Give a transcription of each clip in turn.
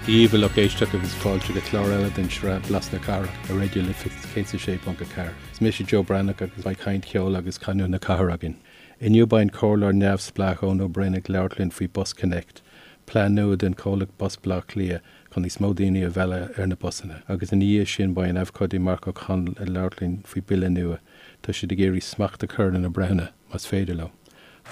Dia dhaoibh a lucht éisteachta agus fáilte go clár eile den tsraith Blas na Cathrach ar Raidió Life 106.4. Is mise Joe Breathnach agus beidh caint cheoil agus canúint na cathrach againn. Inniu beidh an comhairleoir neamhspleách Eoin Ó Broin ag labhairt linn faoi BusConnects, plean nua den chomhlacht Bus Baile Átha Cliath chun níos mó daoine a mhealladh ar na busanna. Agus ina dhiaidh sin beidh an abhcóide Marc Ó Conaill ag labhairt linn faoi bille nua. Tá siad ag iarraidh smacht a chur ar na breithiúna, más féidir leo.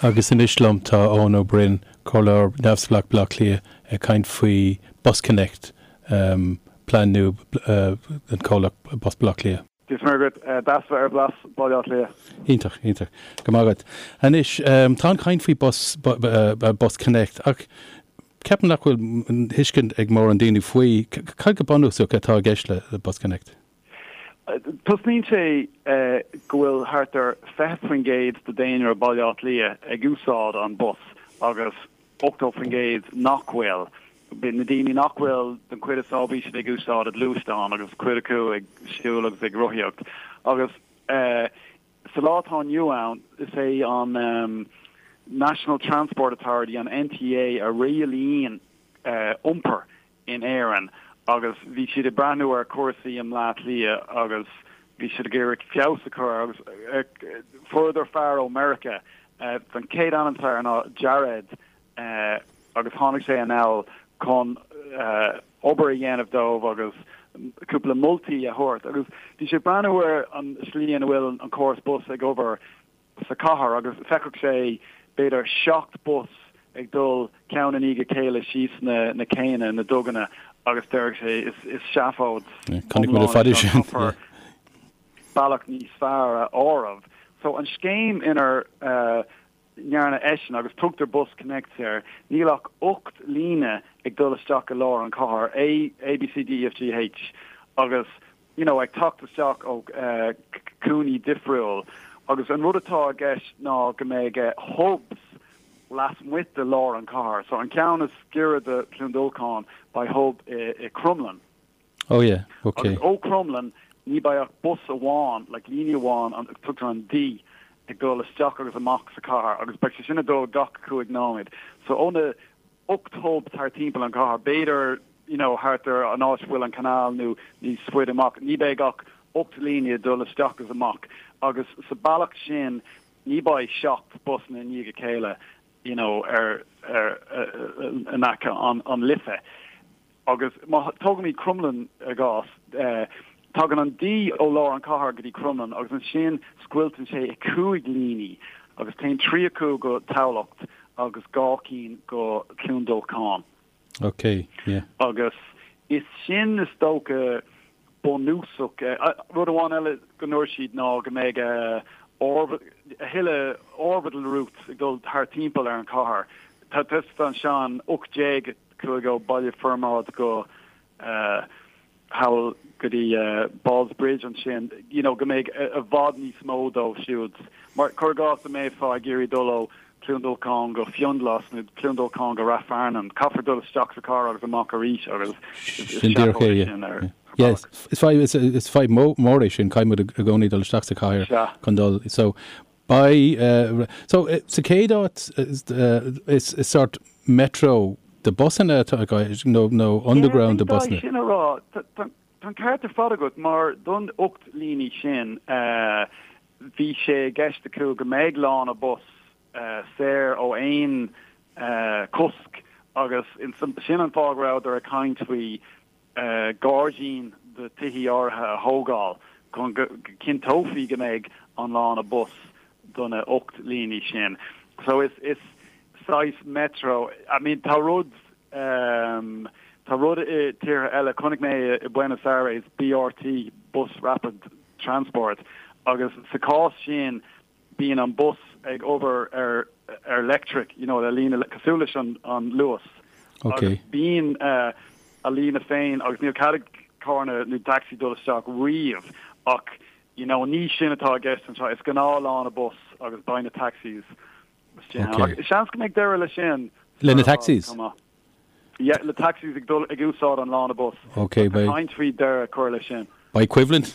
Agus anois liom tá Eoin Ó Broin, Comhairleoir Neamhspleách Baile Átha Cliath, ag caint faoi BusConnects, plean nua den chomhlacht Bus Baile Átha Cliath. Dia is Muire dhuit. Deas bheith ar Blas Baile Átha Cliath. Iontach, iontach. Go maith agat. Anois, tá an chaint faoi Bus, BusConnects ach ceapaim nach bhfuil tuiscint ag mórán daoine faoi. Cad go bunúsach atá i gceist le BusConnects? Tosnaíonn sé go bhfuil thart ar 20% de daonra Baile Átha Cliath ag úsáid an bus agus 80% nach bhfuil. Na daoine nach bhfuil, den chuid is mó bíonn siad ag úsáid a gluaisteán agus cuid acu ag siúl agus ag rothaíocht. Agus sa lá atá inniu ann, is é an National Transport Authority, an NTA, a rialaíonn iompar in Éirinn agus bhí siad ag breathnú ar chúrsaí i mBleá Cliath agus bhí siad ag iarraidh feabhas a chur agus fuaireadar fear ó Meiriceá, an chéad ainm atá air ná Jared agus tháinig sé anall chun obair a dhéanamh dóibh agus cúpla moltaí a thabhairt agus bhí sé ag breathnú ar an slí ina bhfuil an córas bus ag obair sa chathair agus feicfeadh sé b'fhéidir 7 bus ag dul ceann i ndiaidh a chéile síos na na céanna, na duganna agus déarfadh sé is is seafóid iomlán é seo, caithfear bealach níos fearr a áireamh. So an scéim inar ndearna eisean agus tugtar BusConnects air, níl ach 8 líne ag dul isteach i lár an chathair, A, A B C D E F G H agus you know, ag teacht isteach ó cúinní difriúil agus an rud atá i gceist ná go mbeidh hubs lasmuigh de lár an chathair. So an ceann is giorra do Chluain Dolcáin beidh hub i, i Crumlin. Oh yeah, okay. Agus ó Crumlin ní beidh ach bus amháin, like líne amháin, an, tugtar an D ag dul isteach agus amach sa chathair agus beidh sé sin ag dul gach 5 nóiméad. So ó na 8 hub thart timpeall an chathair, b'fhéidir you know thart ar an áit a bhfuil an canal nó níos faide amach, ní beidh ach 8 líne ag dul isteach agus amach agus sa bealach sin ní beidh 7 busanna i ndiaidh a chéile you know ar ar in aice an an Life. Agus má tógaimid Crumlin i gcás, tagann an D ó lár an chathair go dtí Crumlin agus ansin scoilteann sé i 5 líní agus téann 3 acu go Tamhlacht agus 2 cinn go Cluain Dolcáin. Ok, yeah. Agus is sin is dócha bunúsach. Rud amháin eile go ndúirt siad ná go mbeidh a thuilleadh orbital routes ag dul thart timpeall ar an chathair. Tá ansin 18 chuaigh ó Baile Formaid go thall go dtí Ballsbridge ansin, you know, go mbeidh i bhfad níos mó dóibh siúd. Mar, cuir i gcás, dá mbeifeá ag iarraidh dul ó Cluain Dolcáin go Fionnghlas nó Cluain Dolcáin go Rath Fearnáin, caithfear dul isteach sa chathair agus amach arís agus is Sin díreach é, seafóid yeah. sin ar Yeah. bhealach. Is fadhb, is, is fadhb mó, mór é sin, caithfidh muid i gcónaí dul isteach sa chathair Sea. chun dul. So, Beidh, so, sa chéad áit, is sórt metro de busanna atá i gceist, nó nó underground de Yeah, busanna. sin a rá. Tá an ceart ar fad agat, mar don 8 líní sin, bhí sé i gceist acu go mbeidh lána bus saor ó aon cosc agus sin an fáth go rabhadar ag caint faoi gairdín do tithí áirithe a thógáil chun go gcinnteofaí go mbeidh an lána bus do na 8 líní sin. So is is saghas metro, I mean tá rud ehm tá rud i tíortha eile, chonaic mé i Buenos Aires BRT, Bus Rapid Transport, agus sa chás sin bíonn an bus ag obair ar ar leictric, you know, le líne cosúil leis an an Luas. Ok. Agus bíonn a líne féin agus níl cead ag carranna nó taxi dul isteach riamh ach you know ní sin atá i gceist anseo, is gnáth lána bus agus beidh na taxis istigh ann. Ok. Ach seans go mbeidh deireadh leis sin Le na sar i bhfad taxis? chomh maith. Yeah, le taxis ag dul ag úsáid an lána bus. Ok, Tá beidh. caint faoi deireadh a chur leis sin. Beidh coimhlint,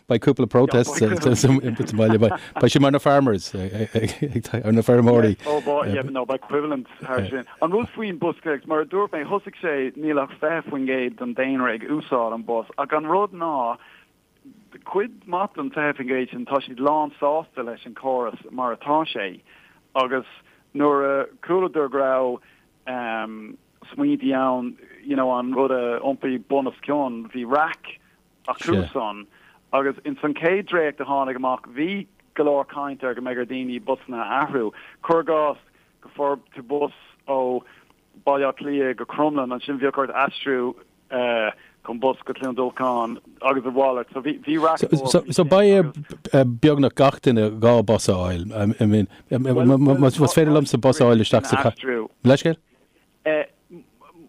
beidh cúpla protest sa mbaile, beidh sé mar na farmers, ar na feirmeoirí. Oh boy, yeah, no, beidh coimhlint thar sin. An rud faoin BusConnects, mar a dúirt mé, thosaigh sé, níl ach 20% den daonra ag úsáid an bus, ach an rud ná, cuid maith den 20% sin, tá siad lán sásta leis an córas mar atá sé, agus nuair a chualadar go raibh smaointí ann, you know, an rud a iompú bun os cionn, bhí raic acusan agus ins an chéad dréacht a tháinig amach bhí go leor caint ar go mbeidh ar daoine busanna a athrú. Cuir i gcás go bhfuair tú bus ó Baile Átha Cliath go Crumlin, ansin bheadh ort aistriú chun bus go Cluain Dolcáin agus a mhalairt. So bhí bhí raic mór So, so beidh ar beagnach gach duine dhá bus a fháil. I mean, más féidir liomsa bus a fháil isteach sa chathair. Leithscéal?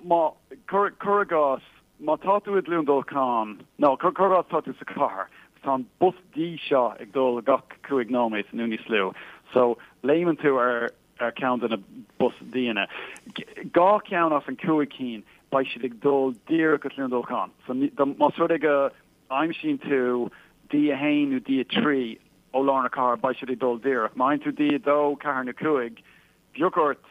Má, cuir i gcás, má tá tú i gCluain Dolcáin, nó cuir i gcás tá tú sa chathair, tá an bus D seo ag dul gach 5 nóiméad nó níos lú. So léimeann tú ar ar cheann de na bus D-anna. Dhá cheann as an 5 cinn, beidh siad ag dul díreach go Cluain Dolcáin. So más rud é go aimsíonn tú D1 nó D3 ó lár na cathrach, beidh siad ag dul díreach. Má fhaigheann tú D2, 4 nó 5, bheadh ort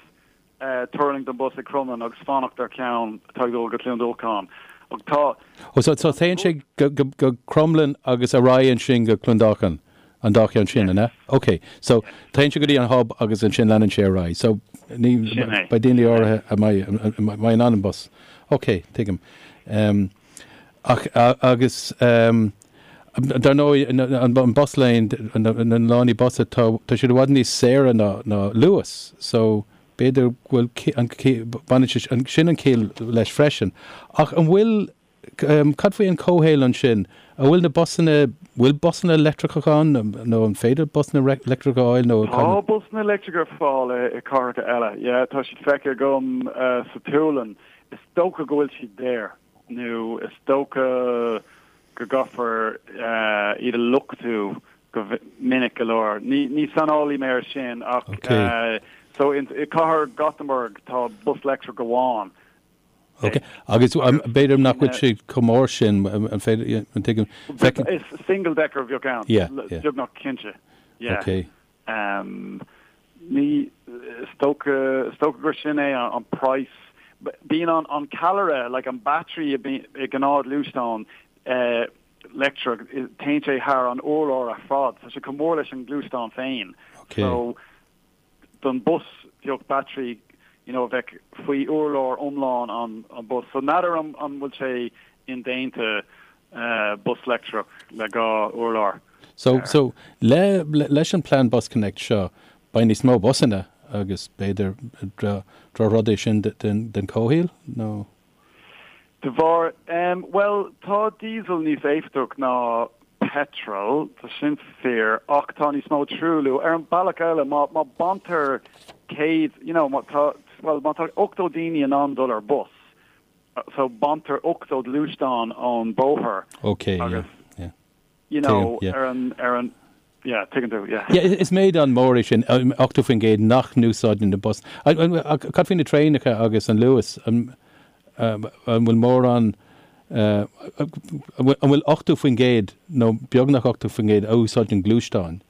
tuirlingt den bus ag Crumlin agus fanacht ar cheann atá ag dul go Cluain Dolcáin. Ach tá. Ó so so téann sé go go go Crumlin agus ar aghaidh ansin go Cluain Dolcáin, an dá cheann sin, an ea? Ok, so téann sé go dtí an hub agus ansin leanann sé ar aghaidh. So ní Sin é. beidh daoine áirithe a mbeidh a mbeidh in ann an bus. Ok, tuigim. Ach agus dar ndóigh an bus lane, na lánaí bus, tá siad i bhfad níos saoire ná ná Luas so b'fhéidir go bhfuil an baineann sé sin an ciall leis freisin. Ach an bhfuil, cad faoi an comhshaol ansin? An bhfuil na busanna, bhfuil busanna leictreacha ann nó an féidir busanna leictreacha a fháil nó? Tá busanna leictreacha ar fáil i cathracha eile, yeah, tá siad feicthe agam sa tSualainn. Is dócha go bhfuil siad daor. nó is dócha go gcaithfear iad a luchtú go minic go leor. Ní saineolaí mé ar sin ach so i cathair Gothenburg tá bus leictreach amháin. Ok, agus b'fhéidir nach bhfuil sé chomh mór sin, an féidir, an tuigim, feicim. Is single decker a bheadh ann, beagnach cinnte. Yeah. Ok. Ní, is dócha, is dócha gur sin é an praghas. Bíonn an, an ceallra, like an battery a bhíonn i ngnáthghluaisteán leictreach, téann sé thar an urlár ar fad. Tá sé chomh mór leis an ngluaisteán féin. Okay. So, don bus bheadh battery, you know, a bheadh faoi urlár iomlán an, an bus. So n'fheadar an, an bhfuil sé indéanta bus leictreach le dhá urlár. So, so, le, leis an plean BusConnects seo, beidh níos mó busanna agus b'fhéidir drochrud é sin den, den comhshaol, nó? De bharr, em, bhuel, tá diesel níos éifeachtach ná petrol, tá sin fíor, ach tá níos mó truailliú. Ar an bealach eile, má, má baintear 100, you know, má tá, bhuel, má tá 80 daoine in ann dul ar bus, so baintear 80 gluaisteán ón bóthar Ok, yeah, agus, yeah. you know, Tuigim, yeah. ar an, ar an, yeah, tuigeann tú, yeah. Yeah, is méid an-mhór é sin, 80% nach n-úsáideann na bus. Cad faoi na traenacha agus an Luas? An bhfuil mórán, an bhfuil 80% nó beagnach 80% a úsáideann gluaisteáin?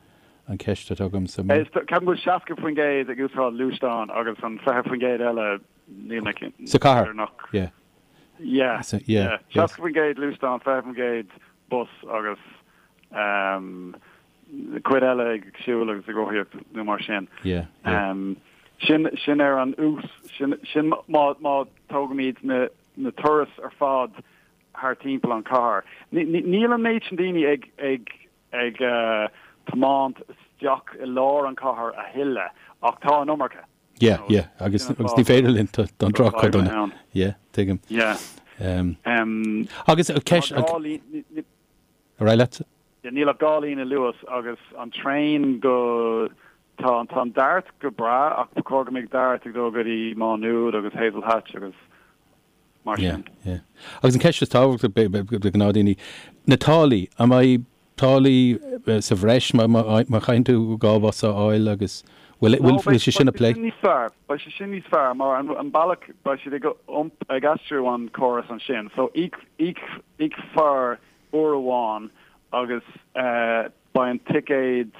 An ceist atá agamsa. Ceapaim go bhfuil 60% ag úsáid gluaisteáin agus an 20% eile níl mé cinnte. Sa chathair? Yeah. Yeah, yeah. 60% gluaisteán, 20% bus agus cuid eile ag siúl agus ag rothaíocht nó mar sin. Yeah, yeah. Sin, sin ar an ús, sin, sin má, má tógaimid na, na turais ar fad thar timpeall an chathair. Níl an méid sin daoine ag, ag, ag tiomáint isteach i lár an chathair a thuilleadh ach tá an iomarca. Yeah, yeah, agus agus ní féidir linn don droch-chuid ann. Yeah, tuigim. Yeah. Agus ceist... Ar aghaidh leat. Níl ach dhá líne Luas agus an traein go... Tá an Dart go breá ach ba chóir go mbeadh Dart ag dul go dtí Má Nuad agus Hazelhatch agus mar sin. Yeah, yeah. Agus an ceist is tábhachtaí do ghnáthdaoine, na táillí, an mbeidh táillí sa bhreis má chaitheann tú dhá bhus a fháil agus bhfuil bhfuil sé sin á phlé? Beidh sé sin níos fearr, beidh sé sin níos fearr mar an bealach beidh siad ag ag aistriú an córas ansin so íocfar. uair amháin agus beidh an ticéad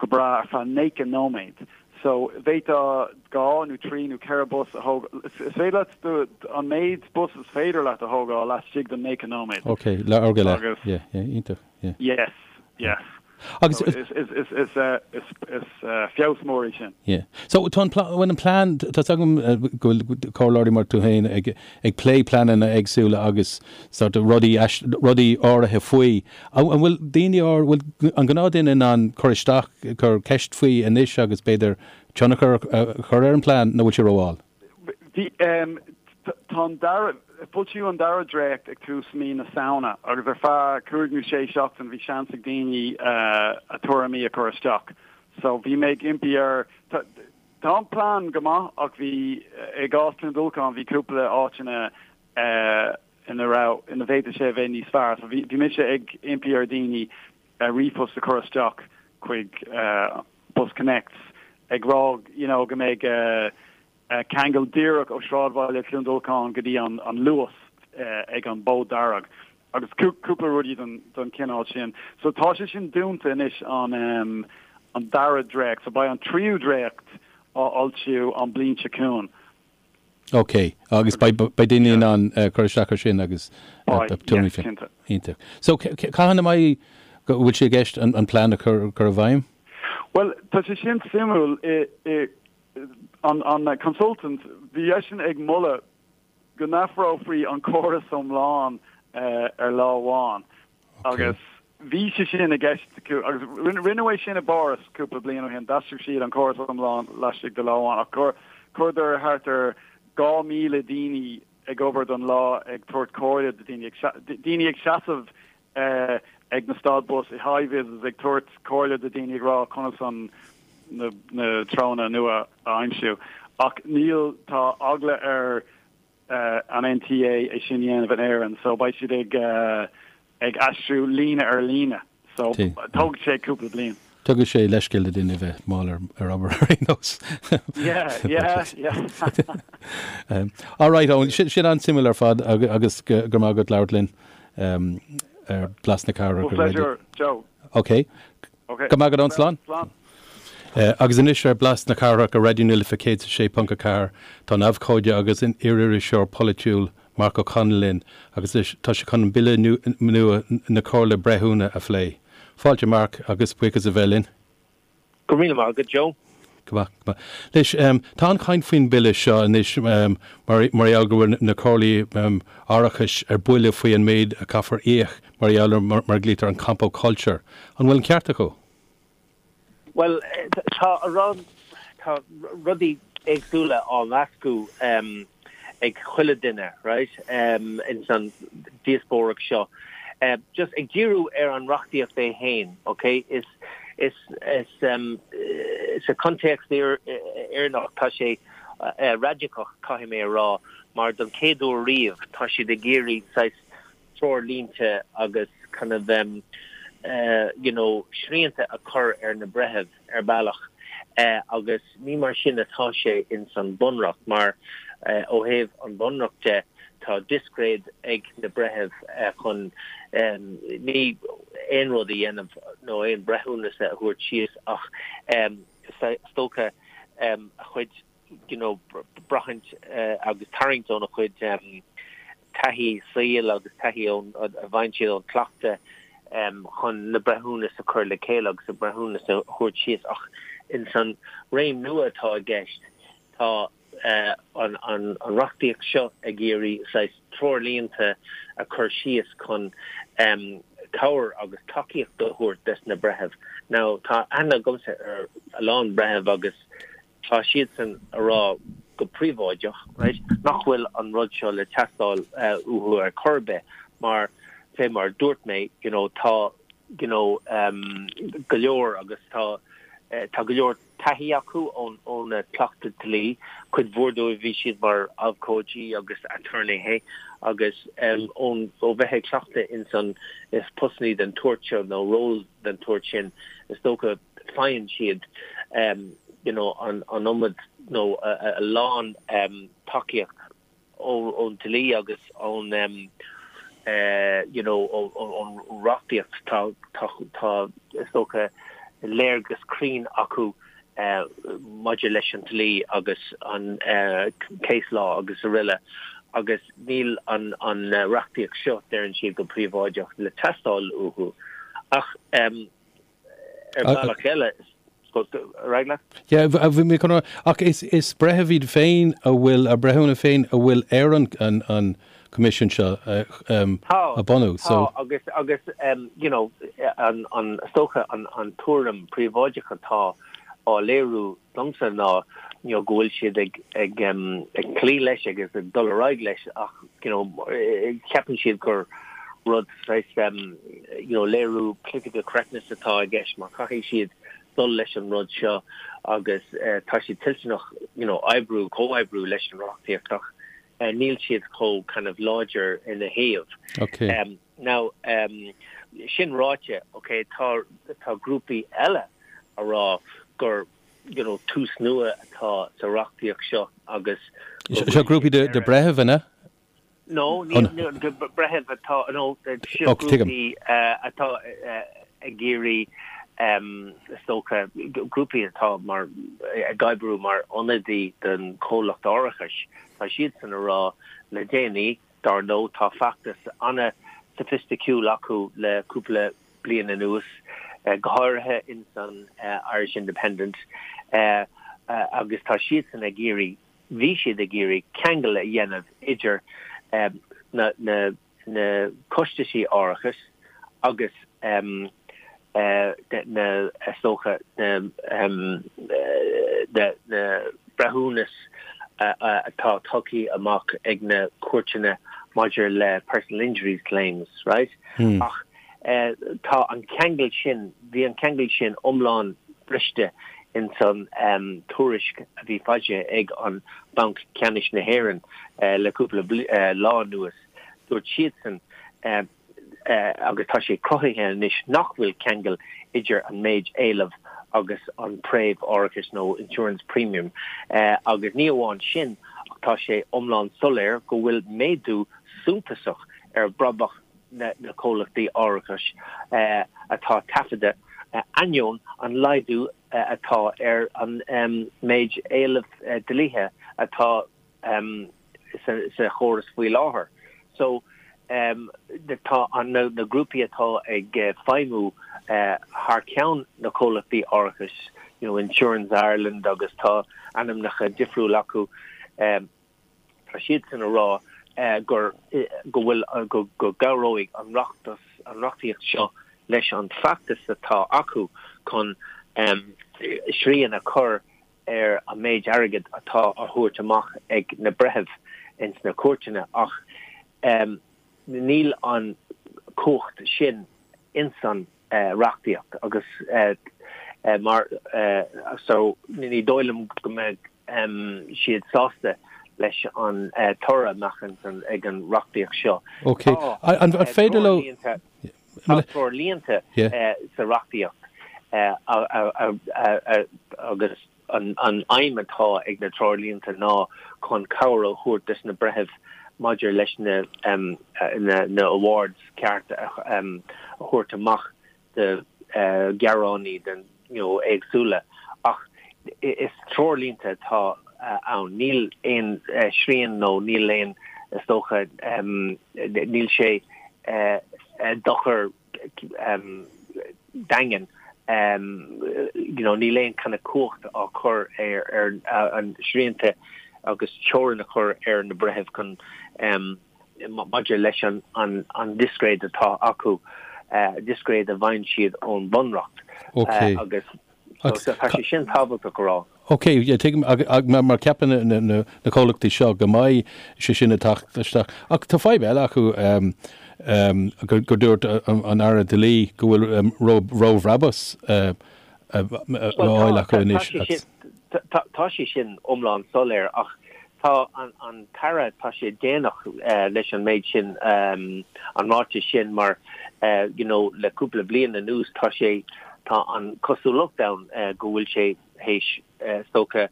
go breá ar feadh 90 nóiméad. So bhféadfá dhá nó trí nó ceithre bus a thógáil. Is féidir leat an méid bus is féidir leat a thógáil laistigh den 90 nóiméad. Ok, le uair go leith. Agus. Yeah, yeah, iontach, yeah. Yes, yes. Agus. So is, is, is, is, is, is feabhas mór é sin. Yeah. So tá an bhfuil an plean, tá 's agam go bhfuil comhairleoirí mar tú féin ag, ag plé pleananna éagsúla agus sort of rudaí, rudaí áirithe faoi. An bhfuil daoine, an bhfuil an gnáthduine in ann cur isteach, cur ceist faoi anois agus b'fhéidir tionchar a chur ar an bplean nó bhfuil sé rómhall? Bhí, tá an dara, foilsíodh an dara dréacht ag tús mí na Samhna agus ar feadh cúig nó sé seachtain bhí seans ag daoine a tuairimí a chur isteach. So bhí mé ag impí ar, tá, tá an plean go maith ach bhí, i gcás Cluain Dolcáin bhí cúpla áiteanna ina raibh, ina bhféadfadh sé a bheith níos fearr. So bhí, bhí mise ag impí ar dhaoine ríomhphost a chur isteach chuig BusConnects ag rá you know go mbeidh ceangal díreach ó sráidbhaile Chluain Dolcáin go dtí an Luas ag an Bhód Dearg agus cúpla rudaí den chineál sin. So tá sé sin dúnta anois an an dara dréacht. So beidh an tríú dréacht á fhoilsiú an bliain seo chugainn. Ok, agus beidh daoine in ann cur isteach ar sin agus tuairimí féin. Iontach. So cathain a mbeidh, go bhfuil sé i gceist an plean a chur i bhfeidhm? Bhuel, tá sé sin suimiúil. An consultant, bhí eisean ag moladh go n-athrófaí an córas iomlán ar lá amháin agus bhí sé sin i gceist acu agus rinneadh é sin i bPáras cúpla bliain ó shin, d'aistrigh siad an córas iomlán laistigh de lá amháin ach chuireadar thart ar 2,000 daoine ag obair don lá ag tabhairt comhairle do daoine, daoine ag seasamh ag na stad bus i hi-vis ag tabhairt comhairle do daoine ag rá conas an na na treonna nua a aimsiú. Ach níl, tá eagla ar an NTA é sin a dhéanamh in Éirinn so beidh siad ag ag aistriú líne ar líne so tógfaidh sé cúpla bliain. Tugadh sé leithscéal do duine a bheith mall ar ar obair ar aon nós. Yeah, yeah, yeah. All right, Eoin, sin sin an-suimiúil ar fad agus go raibh maith agat labhairt linn ar Blas na Cathrach. Well, pleasure, Joe. Ok. Ok. Go raibh maith agat, Eoin, slán. Slán. Agus anois ar Blas na Cathrach ar Raidió na Life 106.4 tá an abhcóide agus an iar-iriseoir polaitiúil Marc Ó Conaill linn agus tá sé chun an bille nua na Comhairle Breithiúna a phlé. Fáilte Marc agus buíochas a bheith linn. Go raibh míle maith agat Joe. Go maith, go maith. Anois, tá an-chaint faoin bille seo anois mar mar gheall go bhfuil na comhairlí árachais ar buile faoi an méid a caithfear íoc mar gheall ar mar a ghlaoitear an compo culture. An bhfuil an ceart acu? Bhuel, tá a rá, tá rudaí éagsúla á mheascadh ag chuile duine, right, ins an díospóireacht seo. Just ag díriú ar an reachtaíocht é fhéin, ok, is, is, is, sa chontéacs Éireannach tá sé raidiceach, caithfidh mé a rá, mar don chéad uair riamh tá siad ag iarraidh saghas treoirlínte agus kind of you know srianta a chur ar na breithimh ar bealach agus ní mar sin atá sé ins an Bunreacht mar ó thaobh an Bhunreacht de tá discréid ag na breithimh chun ní aon rud a dhéanamh nó aon breithiúnas a thabhairt síos ach is dócha a chuid you know, braithint agus tarraingt óna chuid taithí saoil agus taithí ón, a bhfaigheann siad ón cleachtadh chun na breithiúnas a chur le chéile agus a breithiúnas a thabhairt síos. Ach ins an réim nua atá i gceist, tá an an reachtaíocht seo ag iarraidh saghas treoirlínte a chur síos chun cabhair agus tacaíocht a thabhairt des na breithimh. Now, tá aithne agamsa ar a lán breitheamh agus Tá siadsan a rá go príobháideach, right, nach bhfuil an rud seo le teastáil uathu ar chor ar bith mar, fé mar a dúirt mé, you know, tá, you know, go leor agus tá, tá go leor taithí acu ón, óna cleachtadh dlí. Cuid mhór dóibh bhí siad mar abhcóidí agus aturnaetha agus ón, ó bheith ag cleachtadh ins an, is postannaí den tsórt seo nó ról den tsórt sin, is dócha, faigheann siad you know an iomad nó a lán tacaíocht ón dlí agus ón. You know, ón reachtaíocht, tá, tá, tá, is dócha, léargas cruinn acu maidir leis an dlí agus an case law agus araile agus níl an an reachtaíocht seo, deireann siad go príobháideach, le teastáil uathu. Ach ar bhealach eile, ar aghaidh leat. Yeah, bhí mé chun a rá, ach is is breithimh iad féin a bhfuil, a breithiúna féin a bhfuil ar an an an coimisiún seo a bhunú, so. Tá, agus agus you know an an is dócha an an tuairim príobháideach atá á léiriú domsa ná you know go bhfuil siad ag ag ag cloí leis agus ag dul ar aghaidh leis ach you know ceapann siad gur rud saghas you know léiriú political correctness atá i gceist mar caithfidh siad dul leis an rud seo agus tá siad toilteanach you know oibriú comhoibriú leis an reachtaíocht ach níl siad chomh kind of láidir ina thaobh. Okay. Now sin ráite okay tá tá grúpaí eile a rá gur you know tús nua atá sa reachtaíocht seo agus Seo grúpaí de de breithimh an ea? No, ní breithimh atá nó seo grúpaí atá ag iarraidh is dócha grúpaí atá mar ag oibriú mar ionadaí don chomhlacht árachais. Tá siadsan a rá le déanaí, dar ndóigh, tá feachtas an-soifisticiúil acu le cúpla bliain anuas, go háirithe ins an Irish Independent, agus tá siadsan ag iarraidh, bhí siad ag iarraidh ceangal a dhéanamh idir na na costaisí árachais agus na, is dócha, na breithiúnas atá tugtha amach ag na cúirteanna maidir le personal injuries claims, right? Ach tá an ceangal sin, bhí an ceangal sin iomlán briste ins an tuairisc a bhí foilsithe ag an Banc Ceannais na hÉireann le cúpla lá anuas. Dúirt siadsan agus tá sé cruthaithe anois nach bhfuil ceangal idir an méid éileamh agus an préimh árachais nó insurance premium agus ní amháin sin ach tá sé iomlán soiléir go bhfuil méadú suntasach ar bhrabach na comhlachtaí árachais atá taifeadta ainneoin an laghdú atá ar an méid éileamh dlíthe atá sa chóras faoi láthair. So tá na grúpaí atá ag feidhmiú thar ceann na comhlachtaí árachais, you know, Insurance Ireland agus tá ainmneacha difriúla acu, tá siadsan a rá gur go bhfuil go go gcabhróidh an reachtas an reachtaíocht seo leis an bhfeachtas atá acu chun srian a chur ar an méid airgid atá á thabhairt amach ag na breithimh ins na cúirteanna ach níl an chumhacht sin ins an reachtaíocht agus mar so ní dóigh liom go mbeidh siad sásta leis an toradh a mbeadh ag an reachtaíocht seo. Ok. An féidir leo. Tá treoirlínte sa reachtaíocht agus an aidhm atá ag na treoirlínte ná chun cabhair a thabhairt dos na breithimh maidir leis na awards ceart a thabhairt amach do ghearánaí den you know éagsúla ach is treoirlínte atá ann. Níl aon srian nó níl aon, is dócha, níl sé dochar daingean, you know níl aon kind of cumhacht á cur ar an srianta agus teorainn a chur ar na breithimh chun maidir leis an discréid atá acu, discréid a bhfaigheann siad ón bhunreacht agus tá sé sin tábhachtach a rá. Ok, tuigim, mar ceapann na comhlachtaí seo go mbeidh sé sin ag teacht isteach. Ach tá fadhb eile acu gur dúirt an Aire Dlí go bhfuil róbhrabús á fháil acu anois. Tá sé sin iomlán soiléir ach tá an tAire, tá sé déanach leis an méid sin, an ráiteas sin mar you know le cúpla bliain anuas tá sé, tá an chosúlacht ann go bhfuil sé théis is dócha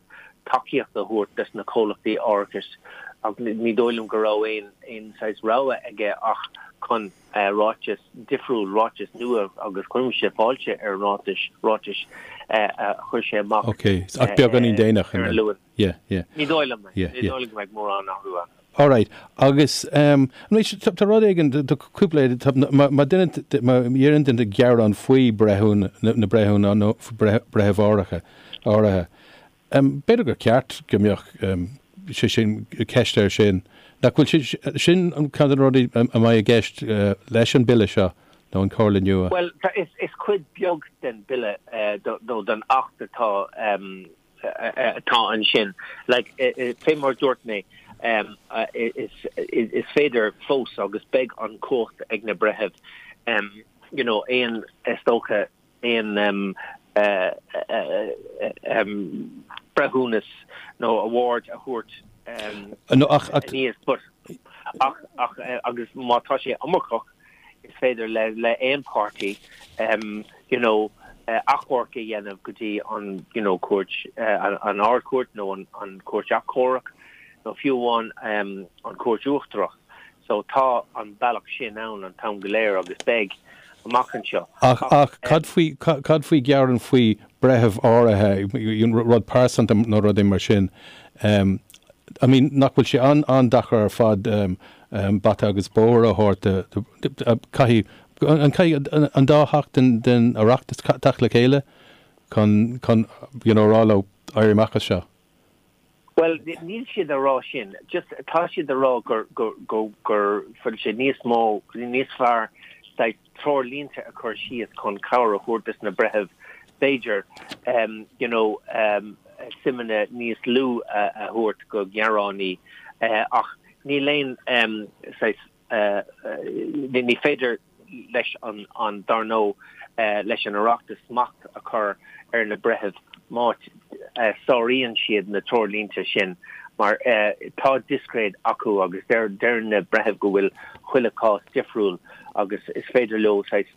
tacaíocht a thabhairt dos na comhlachtaí árachais ach ní dóigh liom go raibh aon saghas rogha aige ach. chun ráiteas difriúil, ráiteas nua agus cuirimse fáilte ar an ráiteas, ráiteas a chuir sé amach Ok, ach beagáinín déanach ar an Luan. Yeah, yeah. Ní dóigh liom é. Yeah, yeah. Ní dóigh liom go mbeidh mórán athrú ann. Alright, agus anois tá rud éigin, tá cúpla, má duine, má dhéanann duine gearán faoi breithiúna, na breithiúna nó breitheamh áirithe, áirithe, B'fhéidir gur ceart go mbeadh sé sin, ceist air sin. Nach bhfuil sé sin ceann de na rudaí a mbeidh i gceist leis an bille seo nó an chomhairle nua? Bhuel, is cuid beag den bille nó den Acht atá atá ansin. Like, fé mar a dúirt mé, is féidir fós agus beidh an chumhacht ag na breithimh, you know, aon, is dócha, aon breithiúnas nó award a thabhairt aníos but ach ach agus má tá sé iomarcach is féidir le le aon páirtí you know achomharc a dhéanamh go dtí an you know cúirt an Ard-Chúirt nó an an Chúirt Achomhairc nó fiú amháin an Chúirt Uachtarach. So tá an bealach sin ann an t-am go léir agus beidh amach anseo. Ach, ach cad faoi, cad faoi gearán faoi breitheamh áirithe, rud pearsanta nó rudaí mar sin? I mean, nach bhfuil sé an-deacair ar fad bata agus bóthar a thabhairt do, caithfidh, an caithfidh an dá theach den, den Oireachtas teacht le chéile chun, chun, you know, a rá leo éirí amach as seo? Bhuel, níl siad a rá sin. Just, tá siad a rá gur, gur, gur, gur bhfuil sé níos mó, níos fearr saghas treoirlínte a chur síos chun cabhair a thabhairt dos na breithimh, b'fhéidir, you know, suimeanna níos lú a thabhairt go gearánaí ach níl aon saghas, ní féidir leis an, dar ndóigh, leis an Oireachtas smacht a chur ar na breithimh má sáraíonn siad na treoirlínte sin mar tá discréid acu agus deir na breithimh go bhfuil chuile chás difriúil agus is féidir leo saghas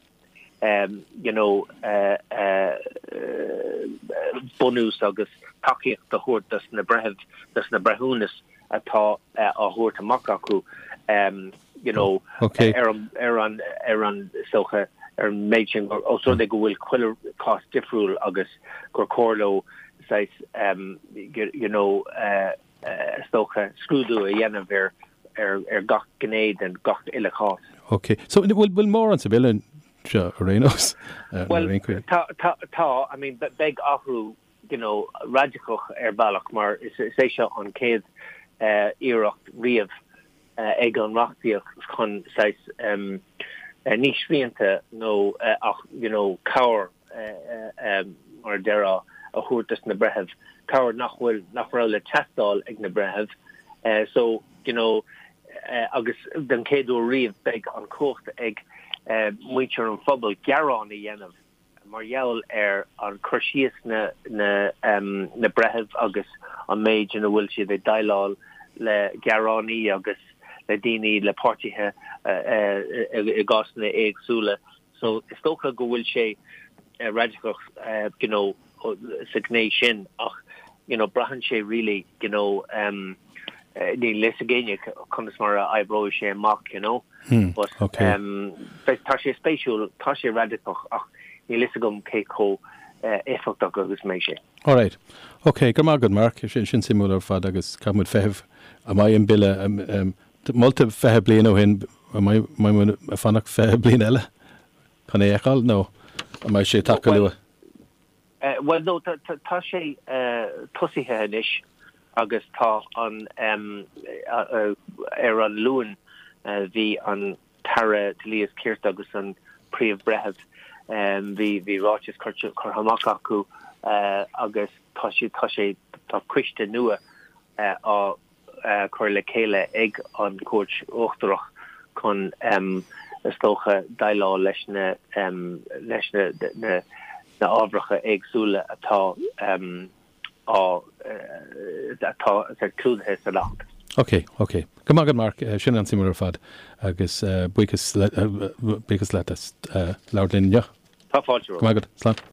you know bunús agus tacaíocht a thabhairt dos na breithimh, dos na breithiúnas atá á thabhairt amach acu you know ar an ar an ar an is dócha ar an méid sin os rud é go bhfuil chuile chás difriúil agus gur chóir leo saghas you know is dócha scrúdú a dhéanamh ar ar ar gach gné den gach uile chás. Ok. So bhfuil bhfuil mórán sa bhille seo ar aon nós? Bhuel tá tá tá I mean beidh athrú you know, radacach ar bhealach mar is é seo an chéad iarracht riamh ag an reachtaíocht chun saghas ní srianta nó ach you know cabhair mar a déarfá a thabhairt dos na breithimh, cabhair nach bhfuil, nach raibh le teastáil ag na breithimh so you know agus den chéad uair riamh beidh an chumhacht ag muintir an phobail gearán a dhéanamh mar gheall ar an cur síos na na breithimh agus an méid ina bhfuil siad ag déileáil le gearánaí agus le daoine, le páirtithe i gcásanna éagsúla. So is dócha go bhfuil sé radacach you know sa ghné sin ach you know braitheann sé really you know níl fhios ag éinne conas mar a oibreoidh sé amach you know. But tá sé spéisiúil, tá sé radacach ach níl fhios agam cé chomh éifeachtach agus a mbeidh sé. Alright. Ok, go raibh maith agat Mark, sin suimiúil ar fad agus caithfidh muid feitheamh an mbeidh an bille molta 20 bliain ó shin, an mbeidh muid ag fanacht 20 bliain eile chun é a fheiceáil nó an mbeidh sé ag teacht go luath? Bhuel no, tá sé tosaithe anois agus tá an, ar an Luan bhí an tAire Dlí is Cirt agus an Príomh-Bhreitheamh, bhí, bhí ráiteas curtha amach acu agus tá sé, tá sé, tá coiste nua á cur le chéile ag an Chúirt Uachtarach chun, is dócha, déileáil leis na leis na na na ábharacha éagsúla atá á atá clúdaithe san Acht. Ok, ok. Go raibh maith agat Mark, sin an-suimiúil ar fad agus buíochas buíochas leat as labhairt linn inniu. Tá fáilte romhat. Go raibh maith agat. Slán.